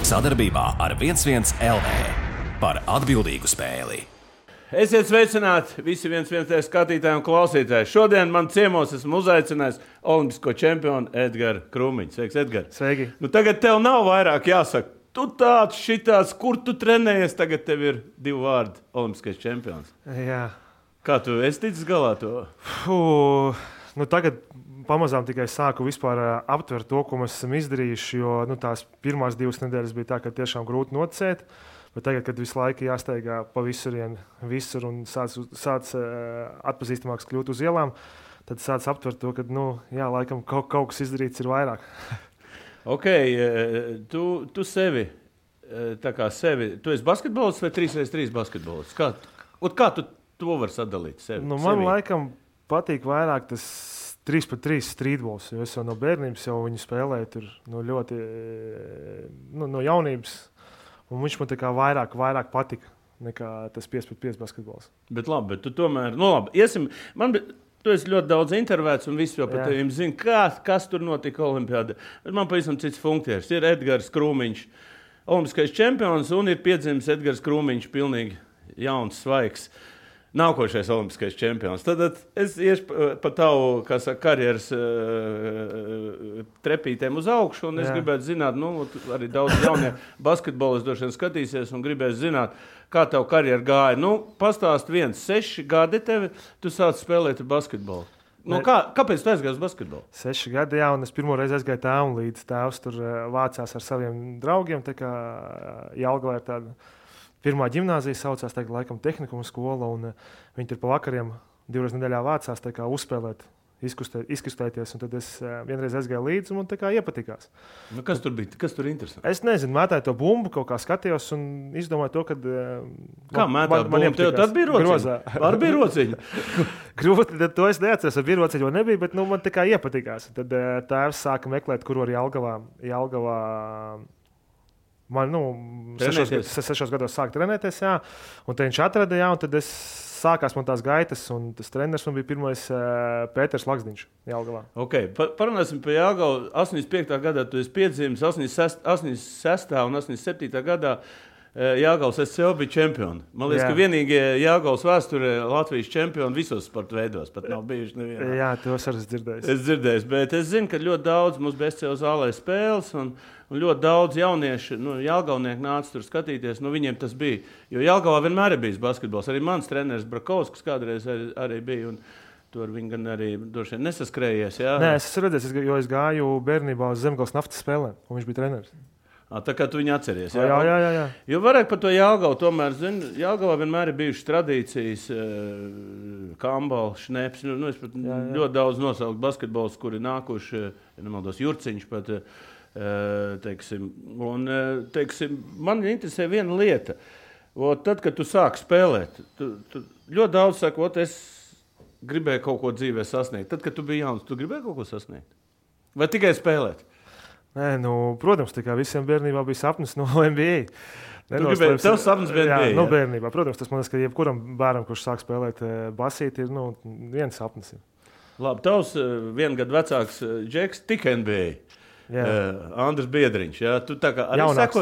Sadarbībā ar 11 LV par atbildīgu spēli. Esiet sveicināti visi 11 skatītāji un klausītāji. Šodien man ciemos esmu uzaicinājis olimpisko čempionu Edgars Krūmiņš. Sveiks, Edgars. Sveiki. Tagad tev nav vairāk jāsaka. Tu tāds, šitāds, kur tu trenējies, tagad tev ir 2 vārdi olimpiskais čempions. Jā. Kā tu esi ticis galā to? Tagad pamazām tikai sāku vispār aptvert to, ko mēs esam izdarījuši, jo tās pirmās 2 nedēļas bija tā, ka tiešām grūti nocēt. Bet tagad, kad visu laiku jāsteigā pa visur un sāc atpazīstamāks kļūt uz ielām, tad sāc aptvert to, ka, laikam kaut kas izdarīts ir vairāk. Ok, tu sevi, tu esi basketbolists vai 3x3 basketbolists? Kā tu to vari sadalīt sevi? Man laikam patīk vairāk tas 3x3 streetbols, jo es jau no bērnības jau viņu spēlēju tur ļoti no jaunības. Un viņš man tā kā vairāk patika nekā tas 5x5 basketbols. Bet tu tomēr, tu esi ļoti daudz intervēts un visi jau par tevim zina, kas tur notika olimpiādē. Bet man pavisam cits funkcijas. Ir Edgars Krūmiņš, olimpiskais čempions, un ir piedzimis Edgars Krūmiņš, pilnīgi jauns, svaigs, nākošais olimpiskais čempions. Tad es iešu pa tavu, karjeras trepītēm uz augšu, un es gribētu zināt, arī daudz jaunie basketbolisti droši vien skatīsies un gribēs zināt, kā tavu karjeru gāja. Pastāst 6 gadi tevi, tu sāc spēlēt basketbolu. Kāpēc tu aizgāji uz basketbolu? 6 gadi, jā, un es pirmo reizi aizgāju tēvam līdz. Tēvs tur vācās ar saviem draugiem, tā kā Jelgavā ir tāda pirmā ģimnāzija saucās, tagad laikam tehnikuma skola, un viņi tur pa vakariem 2 reizes nedēļā vācās tā kā uzspēlēt, izkustēties, un tad es vienreiz aizgāju līdzi, un man tā kā iepatikās. Kas tur bija? Kas tur interesanti? Es nezinu, mētāju to bumbu, kaut kā skatījos un izdomāju to, ka kā mētāju bumbu? Tev tad bija rociņa? Var bija rociņa? Grūti, tad to es neatceros, vai bija rociņa vai nebija, bet man tā kā iepatikās. Tad tēvs sāka meklēt, kur var Jelgavā man 6 gados sāka trenēties, jā, un tad viņš atrada, jā, un tad sākās man tās gaitas, un tas treneris man bija pirmais Pēters Laksdiņš Jelgavā. Ok, parunāsim par Jelgavu. 85. gadā tu esi piedzimis, 86. un 87. gadā Jelgavas SCO bija čempioni. Man liekas, ka vienīgie Jelgavas vēsturē Latvijas čempioni visos sporta veidos, pat nav bijuši nevienā. Jā, to es arī dzirdēju. Es dzirdēju, bet es zinu, ka ļoti daudz mums bija SCO zālē spēles, un ļoti daudz jaunieši, jelgavnieki nāca tur skatīties, viņiem tas bija. Jo Jelgavā vienmēr ir bijis basketbols. Arī mans treneris Brakovskis kādreiz arī bija, un tur viņi gan arī droši vien nesaskrējies. Jā. Nē, es redzēju, jo es gāju bērnībā uz Zemgales naftas spēlēm, un viņš bija treneris. Tā kā tu viņu atceries. Jā. Jo varētu par to Jelgavu tomēr, Jelgavā vienmēr ir bijušas tradīcijas, Kambala, Šneps, es pat ļoti daudz nosaukt basketbolus, kuri nākuši, nemaldos, Jurciņš pat, teiksim, man interesē viena lieta. Tad, kad tu sāki spēlēt, tu ļoti daudz saka, es gribēju kaut ko dzīvē sasniegt. Tad, kad tu biji jauns, tu gribēji kaut ko sasniegt? Vai tikai spēlēt? Nē, protams, tā kā visiem bērnībā bija sapnis no NBA. Tev sapnis bija NBA? Jā, bērnībā. Protams, tas man liekas, ka jebkuram bērnam, kurš sāk spēlēt basīti, ir viens sapnis. Labi, tavs 1 gadu vecāks Džeks tika NBA. Andris Biedriņš. Jā, tu tā kā arī jaunāks,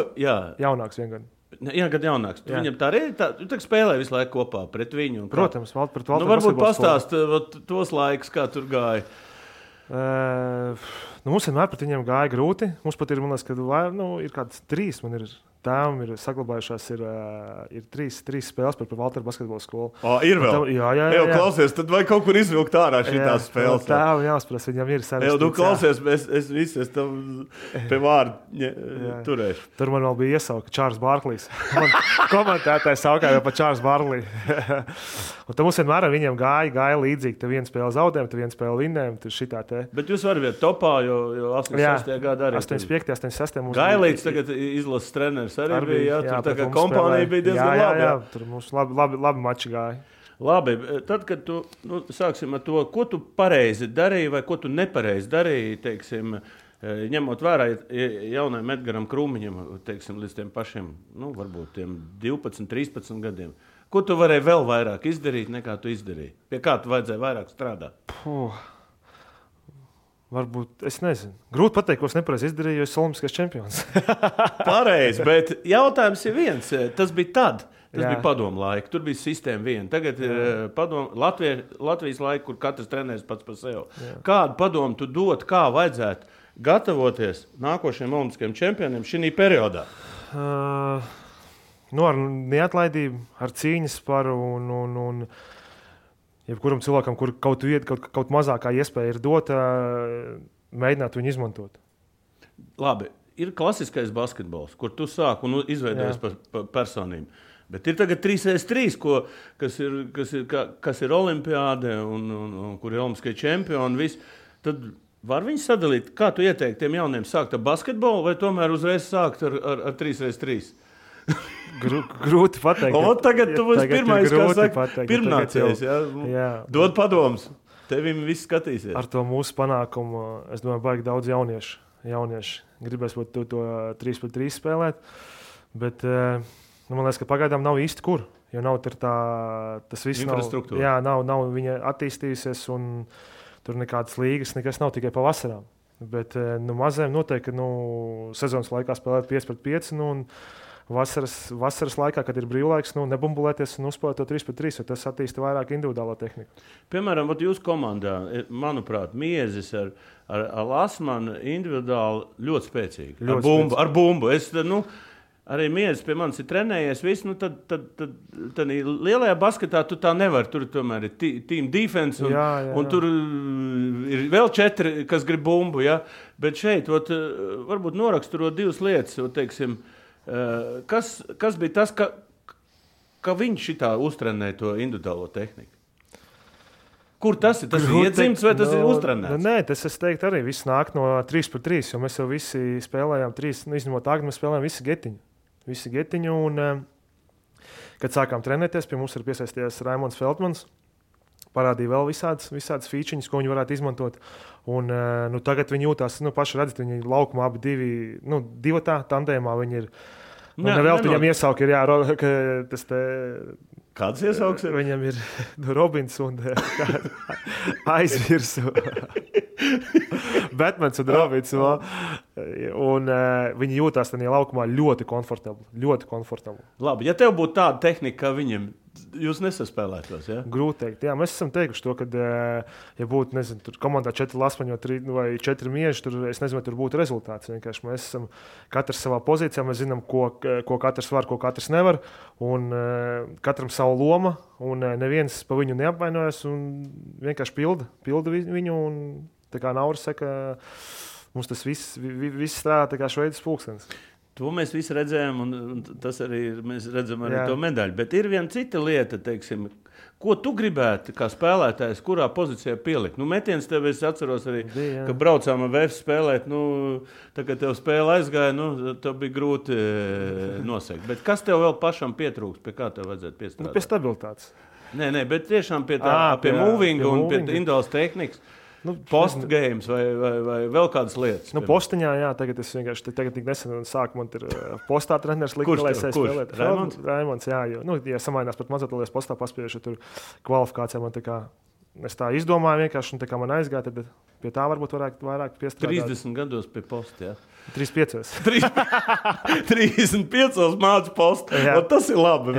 jaunāks 1 gadu. 1 gadu jaunāks. Tu viņam tā arī tu spēlēji visu laiku kopā pret viņu. Protams, pret Valteru. Varbūt pastāst tos laikus, kā tur gāja. Mums vienmēr pret viņiem gāja grūti. Mums pat ir, man liekas, ir kāds 3. Man ir tēvam ir saglabājušās ir 3 spēles par Valteru basketbola skolu. Ir vēl? Jā. Klausies, tad vai kaut kur izvilkt ārā šitās spēles? Tēvam jāspras, viņam ir sarežģīts. Klausies, es tam pie vārdu turēšu. Tur man vēl bija iesauka Čārls Barklīs. Man komentētājs saukā jau pa Čārls Barklī. Un tad mums vienmēr ar viņiem gāja līdzīgi. Te 1 spēle zaudējumi, te 1 spēle vinnējumi, tur šitā te. Bet jūs varat būt topā, jo 86. gadā arī. 85. 86. mums Gailīts tagad izlases treneris arī bija, tur tā kā kompānija bija diezgan labi. Jā, tur mums labi mači gāja. Labi, tad, kad tu, sāksim ar to, ko tu pareizi darīji vai ko tu nepareizi darīji, teiksim, ņemot vērā jaunajam Edgaram Krūmiņam, teiksim, līdz tiem pašiem, varbūt tiem 12, 13 gadiem. Ko tu varēji vēl vairāk izdarīt, nekā tu izdarīji? Pie kā tu vajadzēja vairāk strādāt? Varbūt, es nezinu. Grūti pateikt, ko es nepareizi izdarīju, jo es esmu olimpiskais čempions. Pareizi, bet jautājums ir viens. Tas bija tad. Tas bija padomu laika. Tur bija sistēma viena. Tagad ir Latvijas laika, kur katrs trenēs pats par sevi. Jā. Kādu padomu tu dod, kā vajadzētu gatavoties nākošajiem olimpiskajiem čempioniem šī periodā? Ar neatlaidību, ar cīņas paru un jebkuram cilvēkam, kur kaut mazākā iespēja ir dota, mēģināt viņu izmantot. Labi, ir klasiskais basketbols, kur tu sāk un izveidojies par personību. Bet ir tagad 3x3, kas ir olimpiāde un kur ir olimpiskie čempioni. Tad var viņi sadalīt, kā tu ieteikti tiem jauniem sākt ar basketbolu vai tomēr uzreiz sākt ar 3x3? Grūti pateikt. Tagad tu būsi pirmais, kas saka, pirmnācējs. Dod padomus. Tevim viss skatīsies. Ar to mūsu panākumu, es domāju, baigi daudz jaunieši. Gribēs būt to 3x3 spēlēt. Bet man liekas, ka pagaidām nav īsti kur. Jo nav tas viss infrastruktūra. Nav viņa attīstījusies un tur nekādas līgas, nekas nav tikai pa vasarām. Bet mazajiem noteikti, ka sezonas laikā spēlēt 5-5 un vasaras laikā, kad ir brīvlaiks, nebumbulēties un uzspēlēt to 3-3, jo tas attīsta vairāk individuālo tehniku. Piemēram, jūsu komandā, manuprāt, Miezis ar Lasmanu individuāli ļoti spēcīgi. Ar bumbu. Arī Miezis pie manis ir trenējies. Tad lielajā basketā tu tā nevari. Tur tomēr ir team defense un tur ir vēl 4, kas grib bumbu. Ja? Bet šeit varbūt noraksturot 2 lietas, teiksim, kas bija tas, ka viņš šitā uztrenēja to individuālo tehniku? Kur tas ir? Tas ir iedzimts vai tas ir uztrenēts? Nē, tas es teiktu arī. Viss nāk no 3x3, jo mēs jau visi spēlējām 3, izņemot Agni, mēs spēlējām visi getiņu. Un, kad sākām trenēties, pie mums ir piesaistījies Raimonds Feldmans. Parādīja vēl visādas feature-ņas, ko viņi varētu izmantot. Un, tagad viņi jūtās, paši redzat, viņi laukumā abi divatā tandēmā viņi ir. Vēl viņam iesauki ir, tas te... Kāds iesauks ir? Viņam ir Robins un aizvirsu. Batmans un Robins. Un viņi jūtās tajā laukumā ļoti komfortabli. Labi, ja tev būtu tāda tehnika, kā viņam, jūs nesaspēlētos, ja? Grūti teikt. Jā, mēs esam teikuši to, ka, ja būtu, nezinu, tur komandā 4 lasmaņi vai 4 mieži, es nezinu, vai tur būtu rezultāts. Vienkārši mēs esam katrs savā pozīcijā, mēs zinām, ko katrs var, ko katrs nevar, un katram savu loma, un neviens pa viņu neapvainojas, un vienkārši pilda viņu, un tā kā Nauris saka, mums tas viss strādā tā kā šveicis pulkstenis. To mēs visi redzējām, un tas arī mēs redzam arī to medaļu. Bet ir viena cita lieta, teiksim, ko tu gribētu kā spēlētājs, kurā pozīcijā pielikt? Metiens tev, es atceros arī, ka braucām ar VF spēlēt, tā kā tev spēle aizgāja, tev bija grūti nosegt. Bet kas tev vēl pašam pietrūkst, pie kā tev vajadzētu piestrādāt? Pie stabilitātes. Nē, bet tiešām pie movinga un pie individuālas tehnikas. Postgames vai vēl kādas lietas? Postiņā, jā, tagad es vienkārši tik nesen sāku, man ir postā treneris likuma, lai es spēlētu. Raimonds, jā, jo, ja samainās pat mazotolies postā paspiešu, tur kvalifikācijā man es tā izdomāju vienkārši, un tā kā man aizgāja, tad pie tā varbūt vairāk piestrādāt. 30 gados pie posta, jā? 35. 35 mācu postu. Tas ir labi.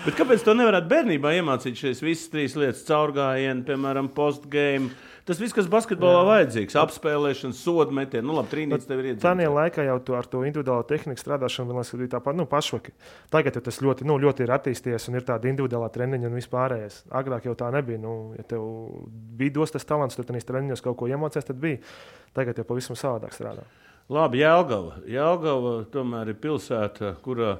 Bet kāpēc to nevarētu bērnībā iemācīt šīs visas 3 lietas? Caurgājienu, piemēram, postgame. Tas viss, kas basketbolā vajadzīgs. Apspēlēšana, sodu metienu. Labi, trīnītis tev ir iedzimts. Tādā laikā jau ar to individuālo tehniku strādāšanu bija tāpat pašvaki. Tagad jau tas ļoti ir attīstījies un ir tāda individuālā treniņa un vispārējais. Agrāk jau tā nebija. Ja tev bija dos tas talants, tad tenīs treniņos kaut ko iemācies, tad bija. Tagad jau pavisam savādāk strādā. Labi, Jelgava tomēr ir pilsēta, kurā,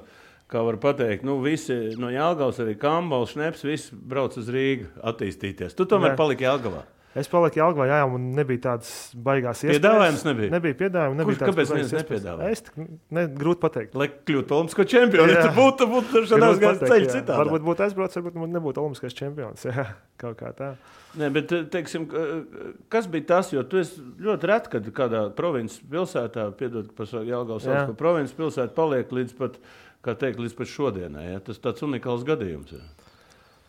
kā var pateikt, visi no Jelgavas, arī Kambols, Šneps, visi brauc uz Rīgu attīstīties. Tu tomēr paliki Jelgavā. Es paliku Jelgavā, jā, un nebija tādas baigās iespējas. Piedāvājums nebija? Nebija piedāvājums. Kāpēc neviens nepiedāvāja? Grūti pateikt. Lai kļūtu olimpisko čempionu, ja tu būtu šādās gājis ceļu citādi. Varbūt būtu aizbraucis, varbūt nebūtu olimpiskais čempions. Jā, kaut kā tā. Nē, bet, teiksim, kas bija tas, jo tu esi ļoti reti, kad kādā provinces pilsētā, piedod, par Jelgavas sauc, ka provinces pilsēta paliek līdz pat šodienai. Ja? Tas tāds unikāls gadījums. Ja?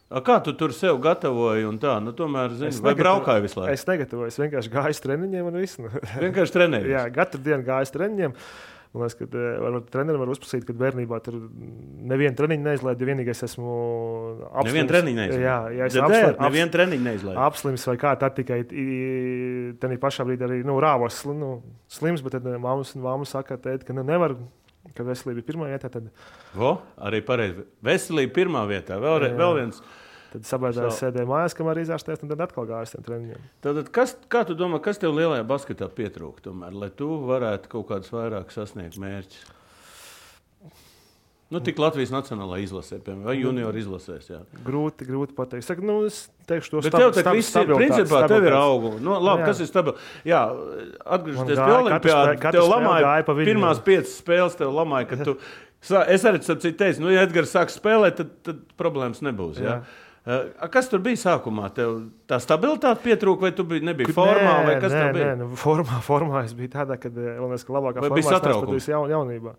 Kā tu tur sev gatavoji un tā? Nu, tomēr, vai braukāji visu laiku? Es negatavoju, es vienkārši gāju uz treniņiem un visu. Vienkārši trenējies? Jā, katru dienu gāju uz treniņiem. Man liekas, ka trenerim var uzprasīt, ka bērnībā tur nevienu treniņu neizlaidu, ja vienīgais esmu apslims. Nevienu treniņu neizlaidu? Jā, es nevienu treniņu neizlaidu. Apslims vai kā, tad tikai tenī pašā brīdī arī rāvos slims, bet tad mamma saka, tēt, ka nevar, ka veselība ir pirmā vietā. Tad... Arī pareizi. Veselība pirmā vietā. Vēl viens. Tad sabaidzās sēdēju mājās, kamēr izārstēs, un tad atkal gājas tiem treniņiem. Tad, kā tu domā, kas tev lielajā basketā pietrūk, tomēr, lai tu varētu kaut kādus vairāk sasniegt mērķus? Tik Latvijas nacionālā izlasē, piemēram, vai junior izlasēs, jā. Grūti pateikt. Saku, es teikšu to bet tev tak viss ir, principā, tev ir augu. Labi, kas ir stabils? Jā, atgriežoties pie olimpiāda, tev lamāja, pirmās 5 spēles tev lamāja, ka tu... Es arī teicu, ja Edgars sāk spēlēt, tad problēmas nebūs, jā. Kas tur bija sākumā? Tev tā stabilitāte pietrūka, vai tu nebija formā? Vai kas tev bija? Formā es biju tādā, kad labākā formā es patīju jaunībā.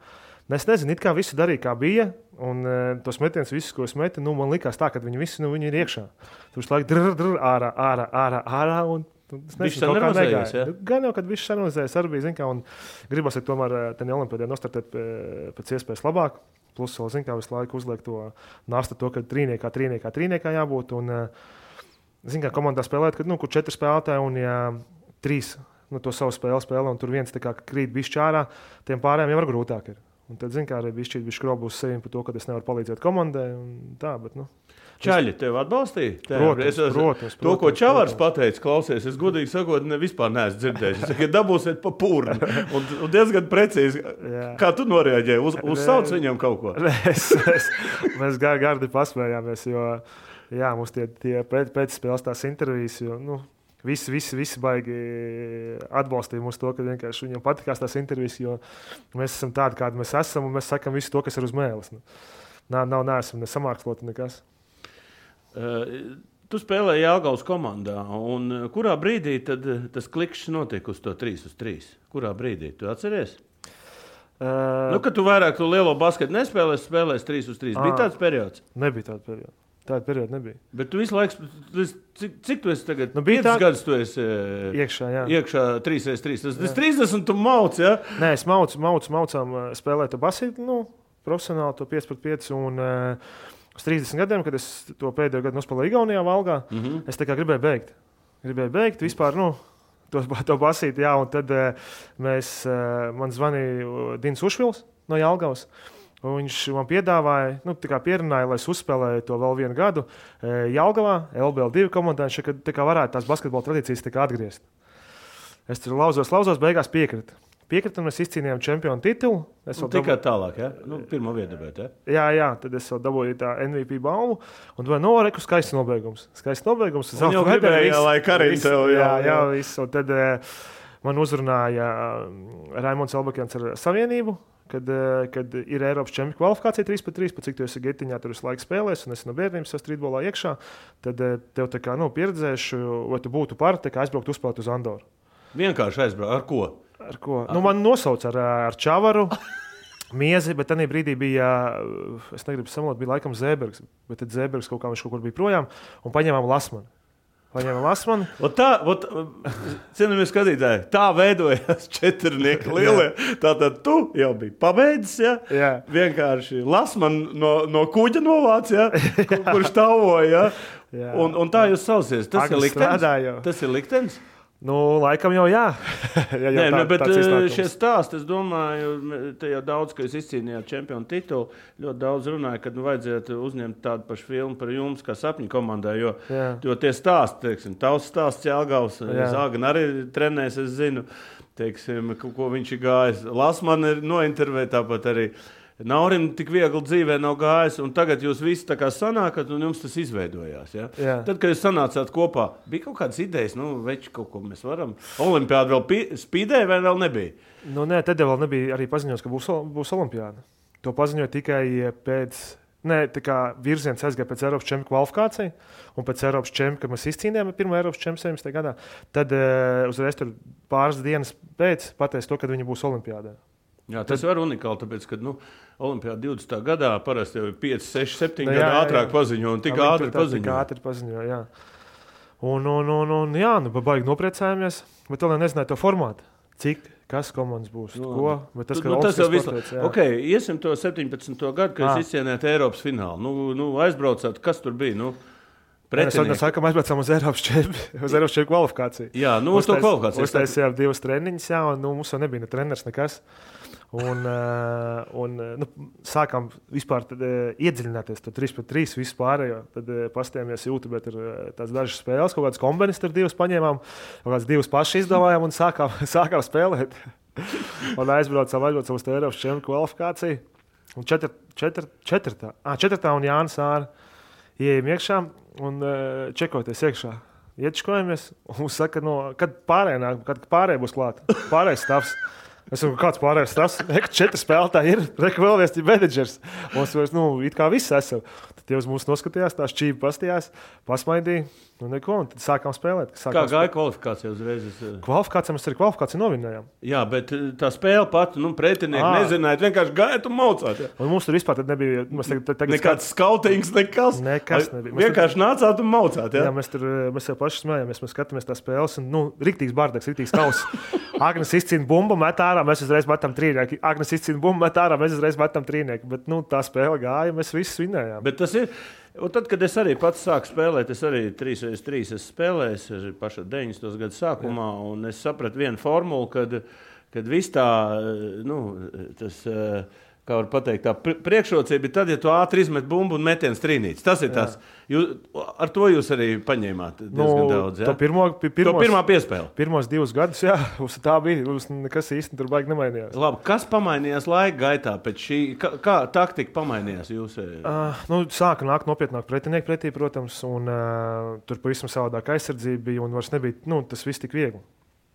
Es nezinu, it kā visi darīja, kā bija, un tos metienus visus, ko es metu, man likās tā, ka viņi visi viņi ir iekšā. Tu visu laiku ārā, un es nezinu, kaut kā negāja. Ja? Gan jau, kad viss sanalizējas, arī bija, zin kā, un gribas tomēr tenī olimpiādē nostartēt pēc iespējas labāk. Plus, vēl, kā visu laiku uzliek to nasta, ka trīniekā jābūt. Un, kā komandā spēlēt, kad, kur 4 spēlētāji un ja 3 to savu spēlē, un tur viens krīt bišķi ārā, tiem pārējiem jau var grūtāk ir. Un tad, kā arī bišķi skrobu uz sevi par to, ka es nevaru palīdzēt komandai. Tā, bet, Čaļi tev atbalstīja? Protams. To, ko Čavars pateica, klausies, es godīgi sakot, vispār neesmu dzirdējis. Es saku, dabūsiet pa pūrni. Un diezgan precīzi. Kā tu noreaģēji? Uzsauc viņam kaut ko? Mēs gardi pasmējāmies, jo mums tie pēcspēles tās intervijas, jo visi baigi atbalstīja mūs to, ka vienkārši viņam patikās tās intervijas, jo mēs esam tādi, kādi mēs esam, un mēs sakam visu to, kas ir uz mēles. Neesam nesamāksloti nekas. Tu spēlēji Jelgavas komandā, un kurā brīdī tad tas klikšs notiek uz to 3-3? Kurā brīdī? Tu atceries? Kad tu vairāk to lielo basketu nespēlēsi, spēlēsi 3-3. Bija tāds periods? Nebija tāda perioda. Tāda perioda nebija. Bet tu visu laiku, cik tu esi tagad? 5 gadus tu esi iekšā 3x3. Tas 30 tu mauc, ja? Nē, es maucām spēlēt to basketu, profesionāli to 5x5 un... Uz 30 gadiem, kad es to pēdējo gadu nospēlēju Igaunijā, Valgā, es tā kā gribēju beigt vispār, to basīt, jā, un tad man zvanīja Dins Ušvils no Jelgavas, un viņš man piedāvāja, pierunāja, lai es uzspēlēju to vēl vienu gadu Jelgavā, LBL2 komandā, kad tā kā varētu tās basketbola tradīcijas tā kā atgriezt. Es tur lauzos, beigās Piekrita, un mēs izcīnījām čempionu titulu. Tikai tālāk, ja? Pirmo vietu dabēt, ja? Jā, tad es vēl dabūju tā MVP balvu, un domāju, reku skaists nobeigums. Un jau gribēja, lai Karins tev, jā, viss. Un tad man uzrunāja Raimonds Elbakjans ar Savienību, kad ir Eiropas čempionu kvalifikācija 3x3, cik tu esi Getiņā, tur visu laiku spēlēs, un esi no bērnības streetbolā iekšā, tad tev tā kā, pieredzēšu, vai tu būtu par, tā kā aizbraukt uzspēlēt uz Andoru. Vienkārši aizbraukt, ar ko? Ar ko? Man nosauc ar Čavaru, Miezi, bet tajā brīdī bija, es negribu samalot, bija laikam Zēbergs, bet tad Zēbergs kaut kur bija projām, un paņēmām Lasmani. Cienījamie skatītāji, tā veidojās 4 lielie. Tātad tu jau biji pabeidzis, ja? Jā. Vienkārši Lasman no kuģa novāc, ja? Kurš tavoja. Ja? Un tā jūs saucies. Tas ir liktenis? Laikam jau jā. Bet šie stāsti, es domāju, te jau daudz, ka jūs izcīnījāt čempionu titulu, ļoti daudz runāja, kad vajadzētu uzņemt tādu pašu filmu par jums, kā sapņu komandai, jo tie stāsti, teiksim, tavs stāsts Jelgavas, Zāgan arī trenēs, es zinu, teiksim, ko viņš ir gājis. Lasman ir nointervēt, tāpat arī Naurim tik viegli dzīvē nav gājis, un tagad jūs visi tā kā sanākat, un jums tas izveidojās. Ja? Tad, kad jūs sanācāt kopā, bija kaut kādas idejas, veči kaut ko mēs varam. Olimpiāda vēl spīdēja vai vēl nebija? Nē, tad vēl nebija arī paziņots, ka būs olimpiāda. To paziņoja tikai pēc, tā kā virziens aizgāja pēc Eiropas čempionu kvalifikācija, un pēc Eiropas čempionu, kad mēs izcīnījām pirmo Eiropas čempionu 17. gadā, tad uzreiz tur pāris dienas pēc pateica to, kad viņi būs olimpiādē. Jā, tas var unikāli, tāpēc, ka Olimpiāda 20. gadā parasti jau 5, 6, 7 gadu ātrāk paziņo un tik ātri paziņo. Jā. Un jā, baigi nopriecājamies, bet vēl nezināju to formātu. Cik, kas komandas būs, ko, bet tas, ka tas jau visu. Ok, iesim to 17. gadu, kad jūs izcienējāt Eiropas finālu. Aizbraucāt, kas tur bija, Mēs sākam aizbraucām uz Eiropas čempionu kvalifikāciju. Jā, uz to kvalifikāciju. Uztaisījām 2 treniņus, jā, un mums jau nebija ne treneris, nekas. Un sākām vispār iedziļināties, tad 3-3 vispārējo. Tad pastījāmies YouTube, tur tās dažas spēles, kaut kādas kombinas tur 2 paņēmām, kaut kādas 2 paši izdomājām un sākām spēlēt. Un aizbraucām uz Eiropas čempionu kvalifikāciju. Un 4. un Jānis Āra ieejam iekšā un čekoties iekšā. Iečkojamies un mums saka, kad pārējie būs klāt. Pārējais stāvs. Es saku, kāds pārējais stāvs? 4 spēlētāji ir, vēl viens ir menedžers. Mums it kā viss esam. Tad tie uz mums noskatījās, tā šķība pastījās, pasmaidīja. Un tad sākām spēlēt. Kā gāja kvalifikācija uzreiz? Kvalifikācija mēs arī kvalifikāciju novinējām. Jā, bet tā spēle pat, pretinieki nezināja, vienkārši gājāt un maucāt. Jā. Un mums tur vispār nebija... Nekāds skautings, nekas nebija. Vienkārši nācāt un maucāt. Jā, mēs jau paši smējāmies, mēs skatāmies tās spēles un, riktīgs bārdeks, riktīgs kauss. Agnes izcīna bumbu, met ārā, mēs uzreiz metam trīnieki. Agnes izcīna bumbu, met ārā, mēs uzreiz metam trīnieki. Bet, tā spēle gāja, mēs visus vinējām. Bet tas ir... Un tad, kad es arī pats sāku spēlēt, es arī 3x3 esmu spēlējis, paša 90. gadu sākumā, un es sapratu vienu formulu, kad viss tā, tas, kā var pateikt, tā priekšrocība ir tad, ja tu ātri izmet bumbu un metiens trīnītis. Tas ir tas. Ar to jūs arī paņēmāt diezgan daudz, jā? To pirmā piespēle. Pirmos 2 gadus, jā, tā bija. Nekas īsti tur baigi nemainījās. Labi, kas pamainījās laika gaitā pēc šī? Kā taktika pamainījās jūs? Sāka nākt nopietnāk pretinieki pretī, protams, un tur pavisam savādāk aizsardzība bija, un vairs nebija, tas viss tik viegli.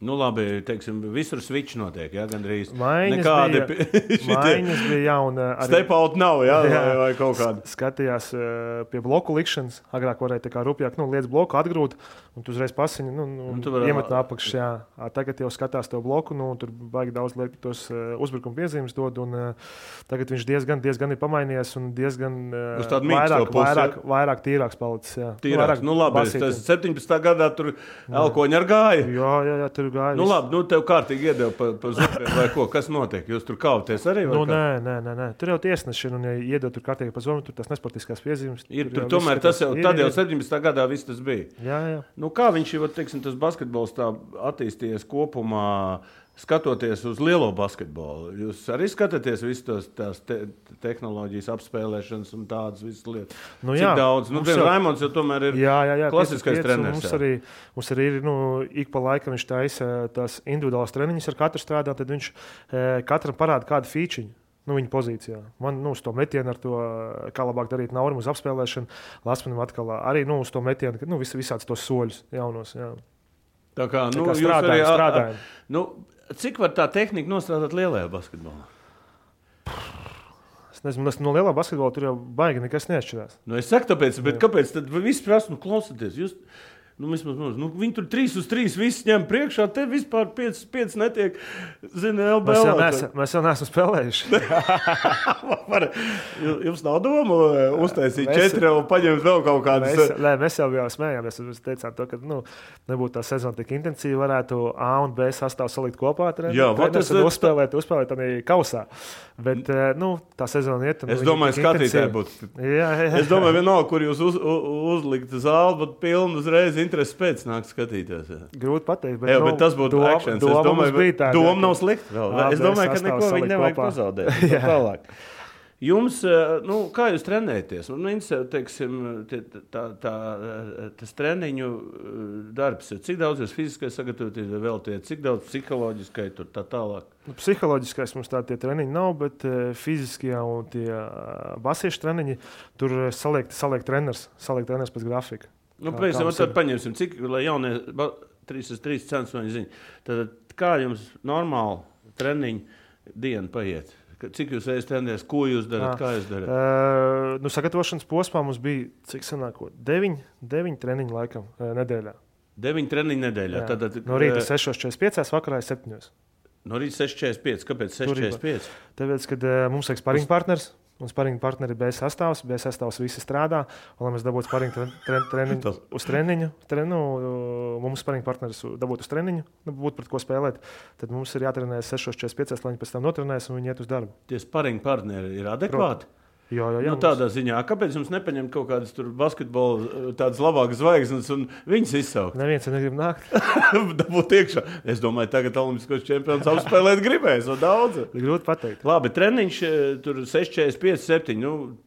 Labi, teiksim, visur switch notiek, jā, gandrīz. Maiņas bija, jā, un arī... Step-out nav, jā, vai kaut kāda. Skatījās pie bloku likšanas, agrāk varēja tā kā rupjāk, liec bloku, atgrūt, un tu uzreiz pasiņi, iemet no apakšas, jā. Tagad jau skatās to bloku, tur baigi daudz liek tos uzbrukuma piezīmes dod, un tagad viņš diezgan ir pamainījies, un diezgan vairāk tīrāks palicis, jā. Tīrāks, labi, tas 17. gadā tur elkoņi ar gāja. Jā, tur gāja. Labi, tev kārtīgi iedeva pa zupiem vai ko, kas notiek? Jūs tur kauties arī? Nē. Tur jau tiesneši, un ja iedeva tur kārtīgi pa zupiem, tur tas nesportiskās piezīmes. Tur tomēr tas jau, tad jau 17. gadā viss tas bija. Jā. Kā viņš jau, teiksim, tas basketbols tā attīstījies kopumā, skatoties uz lielo basketbolu? Jūs arī skatāties visus tās tehnoloģijas apspēlēšanas un tādas visas lietas? Cik daudz? Raimonds jau tomēr ir klasiskais treneris. Mums arī ir, ik pa laikam viņš taisa tās individuālās treniņas ar katru strādā, tad viņš katram parāda kādu fīčiņu. Viņa pozīcijā. Man uz to metienu ar to, kā labāk darīt naurim uz apspēlēšanu, Lasmanim atkal arī uz to metienu, visāds tos soļus jaunos. Jā. Tā kā strādājam. Cik var tā tehnika nostrādāt lielajā basketbolā? Es nezinu, no lielā basketbola tur jau baigi nekas neatšķirās. Es saku tāpēc, bet kāpēc tad visi prasa, klausieties, jūs... viņi tur 3-3 viss ņem priekšā, te vispār 5 netiek, LBL. Mēs jau neesam spēlējuši. Jums nav doma uztaisīt 4 un paņemt vēl kaut kādas? Mēs jau smējāmies, mēs teicām to, ka nebūtu tā sezona tik intensīva, varētu A un B sastāvu salikt kopā, uzspēlēt tādā kausā. Bet tā sezona iet. Es domāju, skatītāji būtu. Es domāju, vienalga, kur jūs uzlikt zāli, būtu pilnu uzreiz interesi pēc nāk skatīties. Jā. Grūti pateikt, bet tas būtu actions. Es domāju, doma nav slikta. Es domāju, ka neko viņi nevajag pazaudēt. Tālāk. Jums, kā jūs trenēties? Teiksim, tas treniņu darbs, cik daudz jūs fiziski sagatavoties veltiet, cik daudz psiholoģiskai tur tā tālāk? Psiholoģiskais mums tie treniņi nav, bet fiziskie un tie basiešu treniņi, tur saliek treneris pēc grafika. Tad paņemsim, cik, lai jaunie 3x3 centsmeņi zina. Tad kā jums normāli treniņu diena paiet? Cik jūs trenēties, ko jūs darat, kā jūs darat? Sagatavošanas posmā mums bija, cik sanāko, 9 treniņu laikam nedēļā. 9 treniņu nedēļā? No rīta 6:45, vakarā 7. No rīta 6,45. Kāpēc 6,45? Tāpēc, kad mums vajag sparinga partners. Un sparinga partneri B sastāvs visi strādā. Un, lai mēs dabūtu sparinga treniņu uz treniņu, mums sparinga partneris dabūtu uz treniņu, būtu pret ko spēlēt, tad mums ir jātrenējas 6,45, lai viņi pēc tam notrenēs un viņi iet uz darbu. Tie sparinga partneri ir adekvāti? Jā, nu, tādā ziņā, kāpēc jums nepaņemt kaut kādas basketbola tādas labākas zvaigznes un viņas izsaukt? Neviens negrib nākt. Dabūt iekšā. Es domāju, tagad olimpiskos čempions apspēlēt gribēs, no daudz. Grūti pateikt. Labi, treniņš tur 6,45, 7,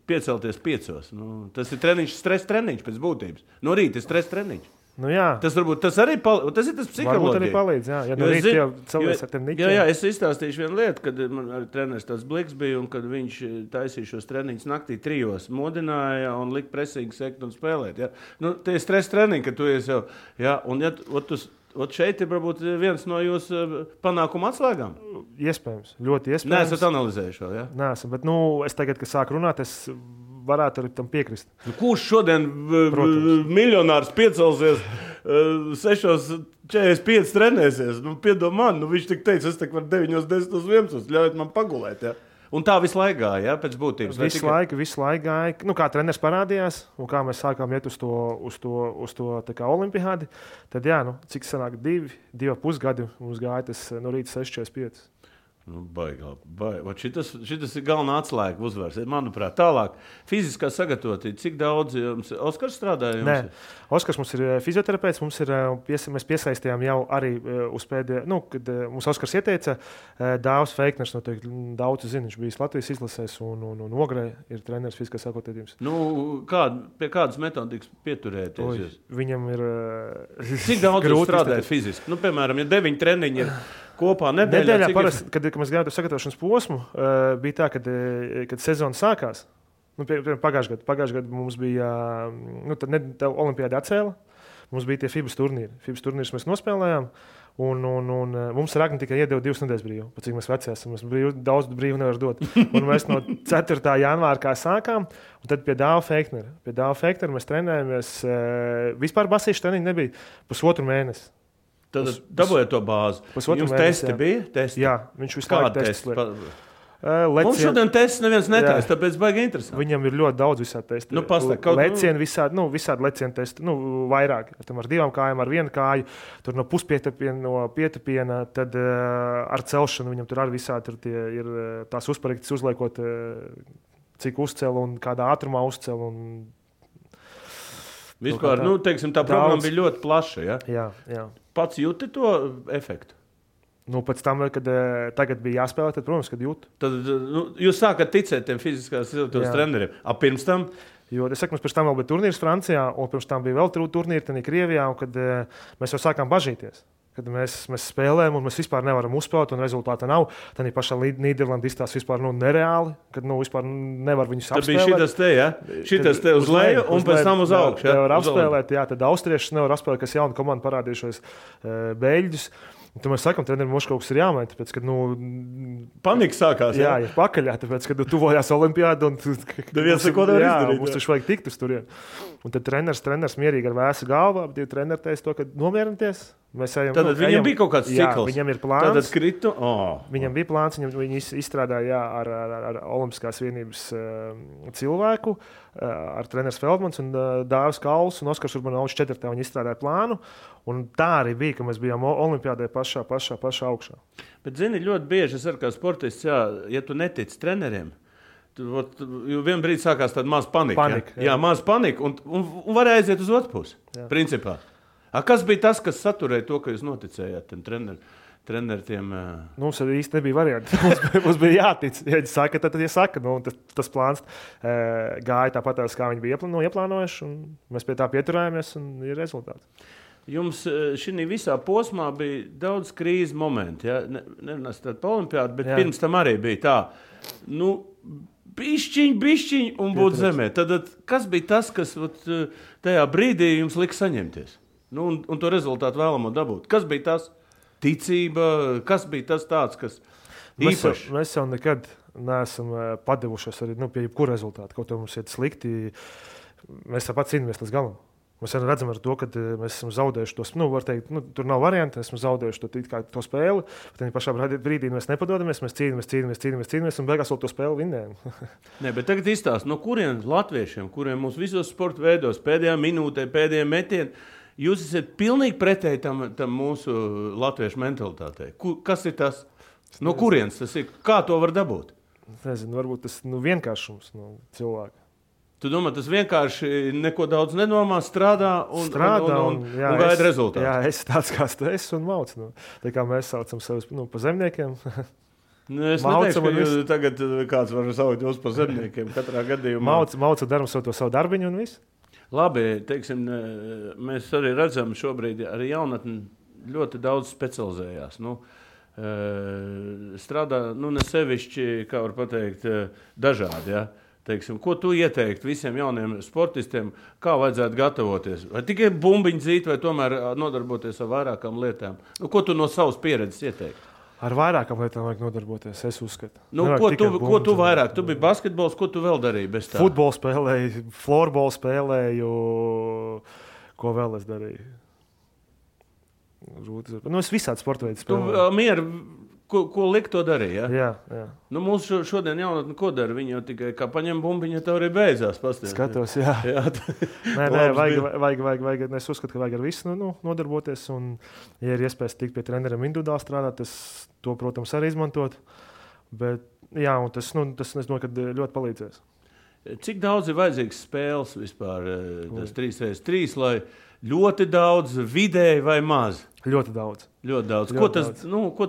piecelties 5. Tas ir treniņš, stress treniņš pēc būtības. No rīta ir stress treniņš. Nu, jā. Tas varbūt tas arī tas ir tas psiholoģija. Varbūt arī palīdz, jā. Ja no rīta jau cilvēks ar tiem niķiem. Jā, es izstāstīšu vienu lietu, kad man arī treneris tāds Bliks bija, un kad viņš taisīja šos treniņus naktī 3, modināja un lika presīgi sekt un spēlēt. Ja? Nu, tie ir stress treniņi, ka tu esi jau, jā, un ja šeit ir varbūt viens no jūsu panākuma atslēgām. Iespējams, ļoti iespējams. Neesat analizējuši vēl, jā? Neesam, bet es tagad, kad sāku runāt, es varētu arī tam piekrist. Kurš šodien miljonārs piecelsies 6,45 trenēsies? Piedod man, viņš tik teica, es varu 9, 10, 11, ļaujiet man pagulēt. Ja? Un tā visu laiku gāja, ja? Pēc būtības. Visu laiku gāja. Kā treneris parādījās un kā mēs sākām iet uz to olimpiādi, tad jā, cik sanāk 2,5 gadi mums gāja tas no rīta 6,45. Baigi. Šitas ir galvenā atslēga uzvaras. Manuprāt, tālāk fiziskā sagatavotība. Cik daudz jums Oskars strādāja? Nē, Oskars mums ir fizioterapeits. Mēs piesaistījām jau arī uz pēdējā, kad mums Oskars ieteica, Dāvs Feikners, noteikti daudz zina, viņš bijis Latvijas izlasēs un Ogrē ir treneris fiziskās sagatavotības. Pie kādas metodikas pieturēties? Viņam ir cik daudz jūs strādājat fiziski? Piemēram, ja 9 treniņi ir kopā nedēļā parasti, kad mēs gājām uz sagatavošanas posmu, bija tā, kad sezona sākās. Pagājušajā gadā mums bija olimpiāda atcēla. Mums bija tie FIBA turnīri. FIBA turnīrus mēs nospēlējām. Un mums Ragni tikai iedeva 2 nedēļas brīvu. Pat cik mēs veci esam, daudz brīvu nevar dot. Un mēs no 4. janvāra kā sākām, un tad pie Dāva Feiknera. Pie Dāva Feiknera mēs trenējāmies. Vispār basīšu treniņu nebija 1,5 mēnesi. Tad dabūjāt to bāzi. Jums testi bija? Testi? Jā, viņš visu laiku testi. Mums šodien tests neviens netaisa, tāpēc baigi interesanti. Viņam ir ļoti daudz visādi testi. Lecieni visādi lecieni testi, vairāk. Tam ar 2 kājām, ar 1 kāju, tur no puspietupiena, no pietupiena, tad ar celšanu viņam tur arī visādi tur ir tās uzparaktas uzliekot, cik uzcēl un kādā ātrumā uzcēl un vispār, teiksim, tā programma bija ļoti plaša, ja? Jā. Pats jūti to efektu? Pēc tam, kad tagad bija jāspēlē, tad, protams, kad jūtu. Tad jūs sākat ticēt tiem fiziskās izglītības treneriem. Pirms tam? Jo, es saku, mums pirms tam vēl bija turnīrs Francijā, un pirms tam bija vēl turnīri Krievijā, un kad mēs jau sākām bažīties. Kad mēs spēlējam, un mēs vispār nevaram uzspēlēt, un rezultāta nav. Tad pašā Nīderlandē izstāsta vispār nereāli, kad vispār nevar viņus apspēlēt. Tad bija šitas te uz leju, un pēc tam uz augšu. Nevar apspēlēt, tad austriešus nevar apspēlēt, kas jauna komanda parādījušies beļģus. Tad mēs sakām, trenerim, mums kaut kas ir jāmaina, tāpēc, kad panika sākās. Jā, ir pakaļā, tāpēc, kad tuvojās olimpiāda un neviens neko nevar izdarīt. Mums taču vajag tikt uz turien. Un tad treneris mierīgi ar vēsu galvu, divi treneri teica to, ka nomierinieties. Tad viņam bija kaut kāds cikls. Viņam ir plāns. Tad kritu. Viņam bija plāns, viņi izstrādāja ar Olimpiskās vienības cilvēku, ar treneris Feldmans un Dāvis Kauls un Oskars Urbanovs 4. Viņi izstrādāja plānu. Un tā arī bija, ka mēs bijām olimpiādē pašā augšā. Bet, zini, ļoti bieži es arī kā sportists, ja tu netici treneriem, jo vienā brīdī sākās tāda maza panika. Jā, maza panika un varēja aiziet uz otru pusi, principā. Kas bija tas, kas saturēja to, ka jūs noticējāt tiem treneriem? Mums īsti nebija varianti. Mums bija jātic. Ja viņi saka, tad viņi saka. Tas plāns gāja tāpat, kā viņi bija ieplānojuši, un mēs pie tā pieturējāmies, un ir rezultāts. Jums šī visā posmā bija daudz krīzes momentu. Ja? Nerunāsim par olimpiādu, bet pirms tam arī bija tā. Bišķiņ un būt zemē. Tad, kas bija tas, kas tajā brīdī jums lika saņemties? Un to rezultātu vēlamo dabūt. Kas bija tas? Ticība, kas bija tas tāds, kas īpašs? Mēs jau nekad neesam padevušies arī pie jebkura rezultāta. Kaut kā mums iet slikti, mēs tāpat cīnāmies līdz galam. Mēs redzam, ar to, ka mēs esam zaudējuši to spēli. Var teikt, tur nav variantu, esam zaudējuši to spēli. Tad pašā brīdī mēs nepadodamies, mēs cīnāmies un beigās vēl to spēli vinnējam. Nē, bet tagad izstāst, no kuriem latviešiem, kuriem mums visos sporta veidos pēdējā minūtē, pēdējā metienā, jūs esat pilnīgi pretēji tam mūsu latviešu mentalitātei. Kas ir tas? No kurienes tas ir? Kā to var dabūt? Nezinu, varbūt tas vienkāršums no cilvēka. Tu domā, tas vienkārši neko daudz nedomā, strādā un gaida rezultātu. Jā, es tāds kā es un mauc. Tā kā mēs saucam sevi pa zemniekiem. Es neteikšu, ka jūs tagad kāds var saukt jūs pa zemniekiem katrā gadījumā. Mauc un daram savu darbiņu un viss. Labi, teiksim, mēs arī redzam šobrīd arī jaunatni ļoti daudz specializējās. Strādā, ne sevišķi, kā var pateikt, dažādi, ja? Teiksim, ko tu ieteiktu visiem jauniem sportistiem, kā vajadzētu gatavoties? Vai tikai bumbiņu dzīt, vai tomēr nodarboties ar vairākām lietām? Ko tu no savas pieredzes ieteiktu? Ar vairākām lietām vajag nodarboties, es uzskatu. Ko tu vairāk? Tu biji basketbols, ko tu vēl darīji bez tā? Futbolu spēlēju, florbolu spēlēju, ko vēl es darīju? Es visādi sporta veidu spēlēju. Ko likt to darīja? Jā. Mums šodien jaunatni ko dara? Viņi jau tikai kā paņem bumbiņu, tev arī beidzās. Skatos, jā. Vajag, es uzskatu, ka vajag ar visu nodarboties. Un, ja ir iespējas tikt pie treneriem individuāli strādāt, to, protams, arī izmantot. Bet, jā, un tas es domāju, ka ļoti palīdzēs. Cik daudz ir vajadzīgs spēles vispār? Tas 3x3, lai ļoti daudz, vidēji vai maz? Ļoti daudz. Ko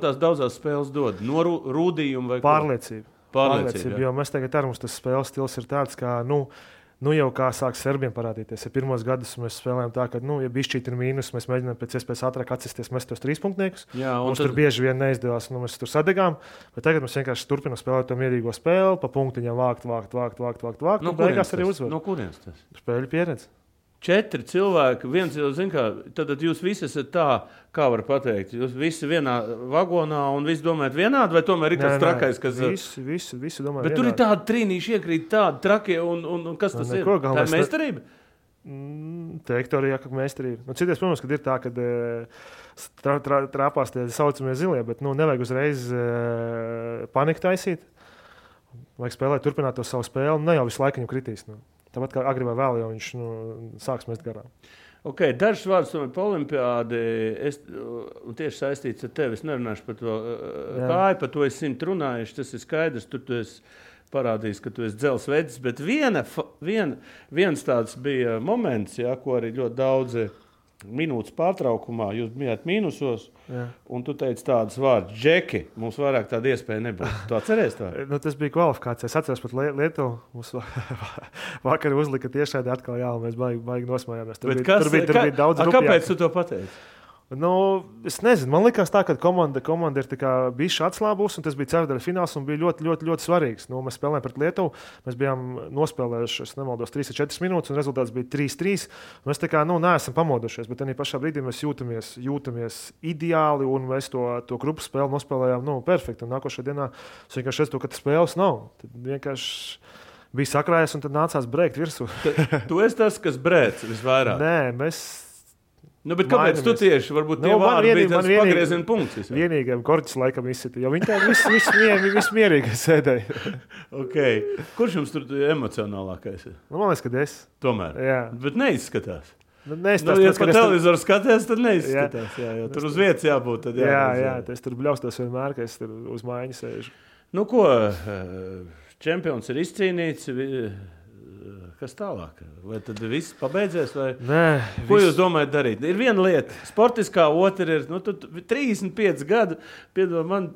tās daudzās spēles dod? No rūdījuma vai Pārliecība. Jo mēs tagad ar mums tas spēles stils ir tāds, kā, jau kā sāk serbiem parādīties. Ja pirmos gadus mēs spēlējam tā, ka, ja bišķīt ir mīnus, mēs mēģinām pēc iespējas ātrāk atsisties, mēs tos 3 punktniekus. Mums tur bieži vien neizdevās, mēs tur sadegām. Bet tagad mēs vienkārši turpinām spēlēt to mierīgo spēli, pa punktiņām vākt. Beigās arī uzvar. No kurienes tas? Spēļu pieredze. 4 cilvēki, viens jau zina, kā tad jūs visi esat tā, kā var pateikt, jūs visi vienā vagonā un visi domājat vienādi, vai tomēr ir kāds trakais, kas... Visi domā bet vienādi. Tur ir tādi trīnīši iekrīt, tādi trakie, un kas tas ir? Tā ir meistarība? Teikt arī, ka meistarība. Cities, protams, kad ir tā, kad trāpās tie saucamie zilie, bet nevajag uzreiz paniku taisīt. Vajag spēlēt, turpināt to savu spēli, ne jau visu laiku viņu kritīs. Tāpat kā agri vai vēl, jau viņš sāks mest garām. Dažs vārds par olimpiādi, tieši saistīts ar tevi. Es nerunāšu par to kāju, par to es 100 runājuši, tas ir skaidrs, tur tu esi parādījis, ka tu esi dzelsvedis, bet viens tāds bija moments, ko arī ļoti daudzi minūtes pārtraukumā, jūs bijāt mīnusos, un tu teici tādas vārdas, Džeki, mums vairāk tāda iespēja nebūs. Tu atceries tā? Tas bija kvalifikācija. Es atceros pat Lietuvu. Mums vakar uzlika tiešādi atkal, un mēs baigi nosmējāmies. Tur bija daudz rupjāk. Kāpēc tu to pateici? Es nezinu, man likās tā, ka komanda ir bijusi atslābusi, un tas bija ceturtdaļa fināls un bija ļoti, ļoti, ļoti svarīgs. Mēs spēlējām pret Lietuvu, mēs bijām nospēlējuši, es nemaldos, 3-4 minūtes, un rezultāts bija 3-3. Mēs tā kā neesam pamodušies, bet tajā pašā brīdī mēs jūtamies ideāli, un mēs to grupu spēli nospēlējām perfekti. Un nākošajā dienā es vienkārši redzu, ka tas spēles nav. Tad vienkārši bija sakrājies, un tad nācās brēkt virsū. Tu esi tas, kas brēc visvairāk? Nē, mēs... bet kāpēc tu tieši? Varbūt tie vārdi bija tas pagrieziena punkts. Vienīgajam Korķis laikam izsita, jo viņi tā viss mierīgi sēdēja. Kurš jums tur emocionālākais ir? Man liekas, ka es. Tomēr? Jā. Bet neizskatās. Ja pa televizoru skaties, tad neizskatās. Jā, tur uz vietas jābūt. Jā, es tur bļaustos vienmēr, ka es tur uz mājiņu sēžu. Čempions ir izcīnīts. Kas tālāk? Vai tad viss pabeidzies? Nē, ko jūs domājat darīt? Ir viena lieta, sportiskā, otra ir 35 gadu. Piedod man,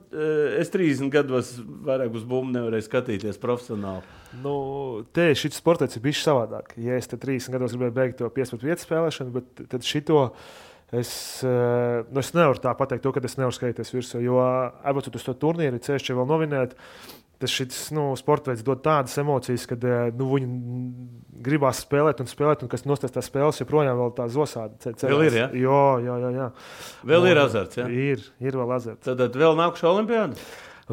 es 30 gados vairāk uz bumbu nevarēju skatīties profesionāli. Šis sports ir bijis savādāk. Ja es 30 gados gribēju beigt to 5-5 spēlēšanu, bet tad šito es nevaru tā pateikt, ka es nevaru skatīties virsū, jo aizbraucot uz to turnīru, ceļš vēl novinēt. Šis sports veids dod tādas emocijas, kad viņi gribās spēlēt, un kas nostās tās spēles, joprojām vēl tā zosāda. Vēl ir, jā? Jā. Vēl ir azarts, jā? Ir vēl azarts. Tad vēl nākušā olimpiāda?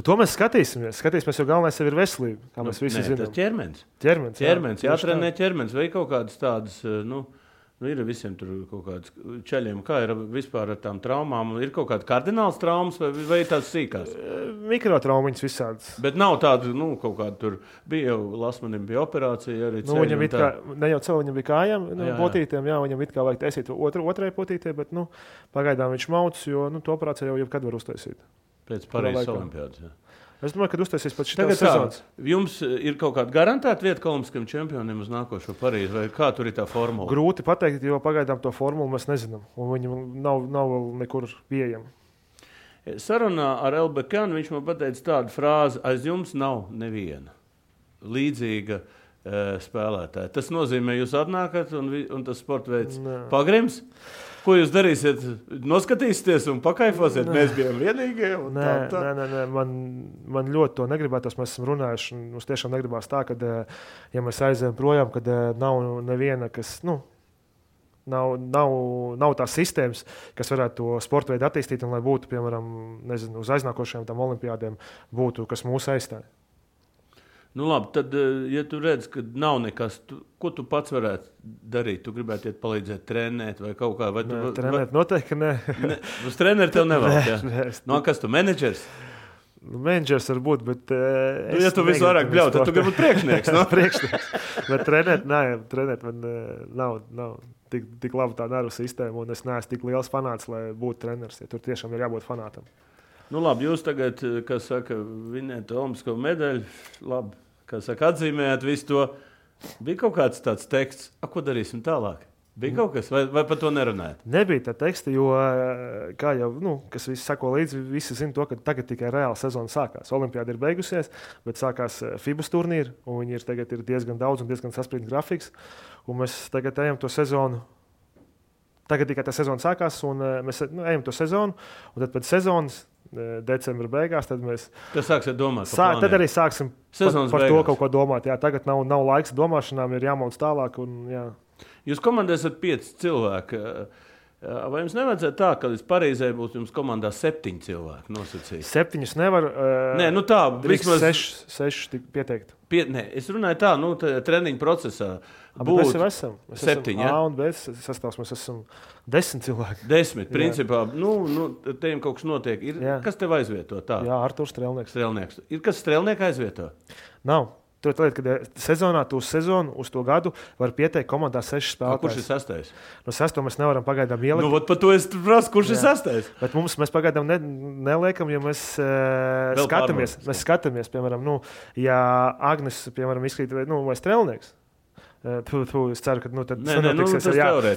To mēs skatīsimies, jo galvenais ir veselība, kā mēs visi zinām. Tas ķermenis. Ķermenis, jātrenē ķermenis, vai kaut kādas tādas, Ir visiem tur kaut kāds ceļiem, kā ir vispār ar tām traumām. Ir kaut kāda kardināls traumas vai tās sīkās? Mikrotraumiņas visādas. Bet nav tāda, kaut kāda tur bija jau, Lasmanim bija operācija arī. Viņam it kā, ne jau cilvē, viņam bija kājām, potītēm, viņam it kā vajag taisīt otrai potītē, bet, pagaidām viņš mauc, jo, to operāciju jau jebkad var uztaisīt. Pēc Parīzes olimpiādas, jā. Es domāju, ka uztaisīs pēc šitās sezonas. Jums ir kaut kāda garantēta vieta olimpiskajiem čempioniem uz nākošo Parīzi, vai kā tur ir tā formula? Grūti pateikt, jo pagaidām to formulu mēs nezinām, un viņa nav vēl nekur pieejama. Sarunā ar Elbekanu viņš man pateica tādu frāzi, aiz jums nav neviena līdzīga spēlētāja. Tas nozīmē, jūs atnākat un tas sportveids pagrims? Ko jūs darīsiet? Noskatīsieties un pakaifosiet? Mēs bijām vienīgie? Nē. Man ļoti to negribētos. Mēs esam runājuši. Mums tiešām negribās tā, ka, ja mēs aizējam projām, kad nav neviena, kas, nav tās sistēmas, kas varētu to sporta veidu attīstīt un lai būtu, piemēram, uz aiznākošajām tām olimpiādēm būtu, kas mūs aizstāja. Labi, tad, ja tu redz, ka nav nekas, ko tu pats varētu darīt? Tu gribētu iet palīdzēt trenēt vai kaut kā? Trenēt noteikti, ka nē. Uz treneri tev nevēlas, jā? Kas tu, menedžers? Menedžers var būt, bet... Ja tu visu vairāk bļaut, tad tu gribi būt priekšnieks, no? Priekšnieks. Bet trenēt man nav tik laba tā nervu sistēma, un es neesmu tik liels fanāts, lai būtu treneris. Ja tur tiešām ir jābūt fanātam. Labi, jūs tagad, kas saka, vinējat olimpisko medaļu, labi, kas saka, atzīmējat visu to. Bija kaut kāds tāds teksts, ko darīsim tālāk? Bija kaut kas, vai par to nerunājat? Nebija tā teksta, jo, kā jau, kas visi sako līdzi, visi zina to, ka tagad tikai reāla sezona sākās. Olimpiāda ir beigusies, bet sākās FIBAS turnīri, un viņi tagad ir diezgan daudz un diezgan saspringts grafiks, un mēs tagad ejam to sezonu. Tagad tikai tā sezona sākās, un mēs ejam to sezonu, un tad pēc sezonas, decembra beigās, tad mēs... Tad sāksiet domāt tad arī sāksim par to kaut ko domāt. Jā, tagad nav laiks domāšanām, ir jāmauc tālāk. Jā. Jūs komandē esat 5 cilvēki. Vai jums nevajadzētu tā, ka līdz Parīzē būs jums komandā 7 cilvēki nosacīti? 7 nevar. Nē, tā. Vismaz 6 pieteikt. Es runāju tā, treniņu procesā. Mēs jau esam. 7, jā? A un B sastāvs, mēs esam 10 cilvēki. 10, principā. Te jums kaut kas notiek. Kas tev aizvieto? Tā? Jā, Arturs Strelnieks. Ir kas Strelnieku aizvieto? Nav. Tur ir, kad sezonā, uz sezonu, uz to gadu var pieteikt komandā 6 spēlētājus. Kurš ir 6? No 6 mēs nevaram pagaidām ielikt. Par to es prasu, kurš ir 6? Bet mēs pagaidām neliekam, jo mēs skatāmies. Mēs skatāmies, piemēram, ja Agnes, piemēram, izkrīt vai Strelnieks. Es ceru, ka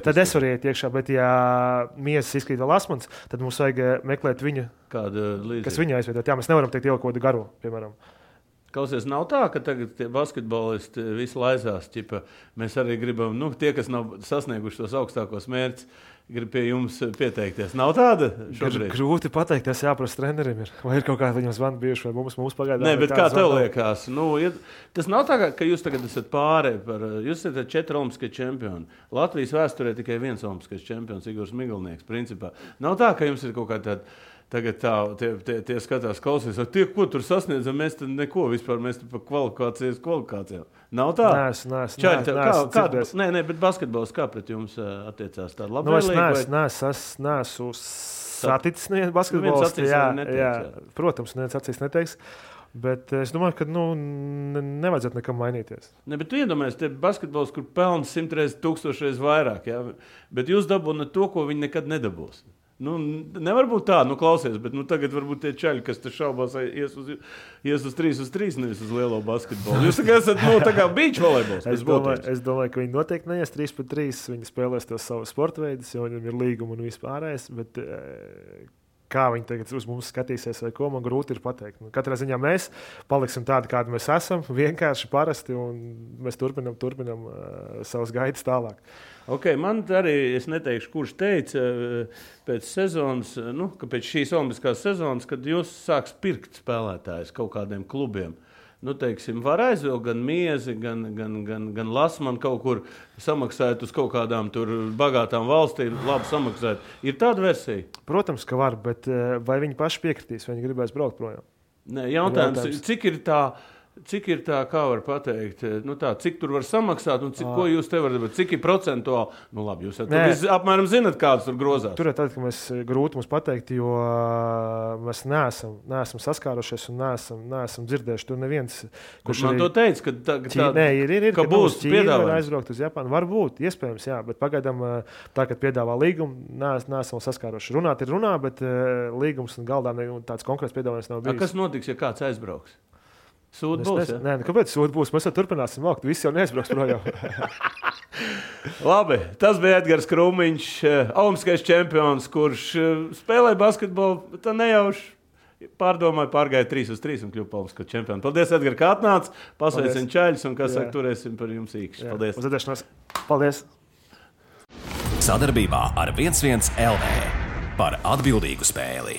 tad es varu iet iekšā, bet ja Miesas izkrīt vēl Lasmans, tad mums vajag meklēt viņa, kas viņu aizvietot. Jā, mēs nevaram teikt ielikt kaut kādu garo, piemēram. Klausies, nav tā, ka tagad tie basketbolisti visi laizās. Mēs arī gribam, tie, kas nav sasnieguši tos augstākos mērķus, grib pie jums pieteikties. Nav tāda šobrīd? Grūti pateikt, tas jāprasa trenerim. Vai ir kaut kāda viņam zvana bijuši, vai mums pagaidām? Nē, bet kā tev liekas? Tas nav tā, ka jūs tagad esat pāri par... Jūs esat 4 olimpiskie čempioni. Latvijas vēsturē tikai 1 olimpiskais čempions, Igors Migalnieks, principā. Nav tā, ka jums ir kaut kā tāda... Tagad tie skatās, klausies, ko tur sasniedzam, mēs tad neko vispār, mēs par kvalifikācijām. Nav tā? Nē, bet basketbols kā pret jums attiecās tāda labvēlīga? Es neesmu saticis nevienu basketbolistu. Jā, protams, neviens acīs neteiks. Bet es domāju, ka nevajadzētu nekam mainīties. Ne, bet tu iedomājies, te basketbols, kur pelna 100 reizes, 1000 reizes vairāk, jā? Bet jūs dabūnat to, ko viņi nekad nedabūs. Nevar būt tā, klausies, bet tagad varbūt tie čaļi, kas te šaubās, ies uz 3-3, nevis uz lielo basketbolu. Jūs esat, tā kā beach volejbols. Es domāju, ka viņi noteikti neies 3-3, viņi spēlēs tos savus sporta veidus, jo viņam ir līguma un vispārējais, bet kā viņi tagad uz mums skatīsies vai ko, man grūti ir pateikt. Katrā ziņā mēs paliksim tādi, kādi mēs esam, vienkārši parasti, un mēs turpinam savas gaitas tālāk. Man arī, es neteikšu, kurš teica pēc sezonas, ka pēc šīs olimpiskās sezonas, kad jūs sāks pirkt spēlētājus kaut kādiem klubiem, teiksim, var aizvilkt gan Miezi, gan Lasmanu kaut kur samaksājot uz kaut kādām tur bagātām valstīm, labi samaksājot. Ir tāda versija? Protams, ka var, bet vai viņi paši piekritīs, vai viņi gribēs braukt projām? Nē, jautājums, cik ir tā Cik ir tā, kā var pateikt, cik tur var samaksāt un ko jūs te varat darīt? Cik ir procentuāli? Nu labi, jūs apmēram zinat, kādas tur grozās. Tur ir tad, ka grūti mums pateikt, jo mēs neesam saskārušies un neesam dzirdējuši. Tur neviens, kurš man to teica, ka būs piedāvājums aizbraukt uz Japānu. Varbūt, iespējams, jā, bet pagaidām tā, kad piedāvā līgumu, neesam saskāruši. Runāt ir runā, bet līgums un galdā tāds konkrēts piedāvājums nav bijis. Kas notiks, ja kāds aizbrauks? Sūd būs, ja? Nē, kāpēc sūd būs? Mēs jau turpināsim vākt. Visi jau neaizbrauks projām. Labi, tas bija Edgars Krūmiņš, olimpiskais čempions, kurš spēlēja basketbolu, tā nejauši pārdomāja, pārgāja 3-3 un kļuva olimpiskā čempiona. Paldies, Edgar, kā atnāc, pasveicam čaļus un, saka, turēsim par jums īkšķi. Paldies. Uzvedēšanās. Paldies. Sadarbībā ar 11 LV par atbildīgu spēli.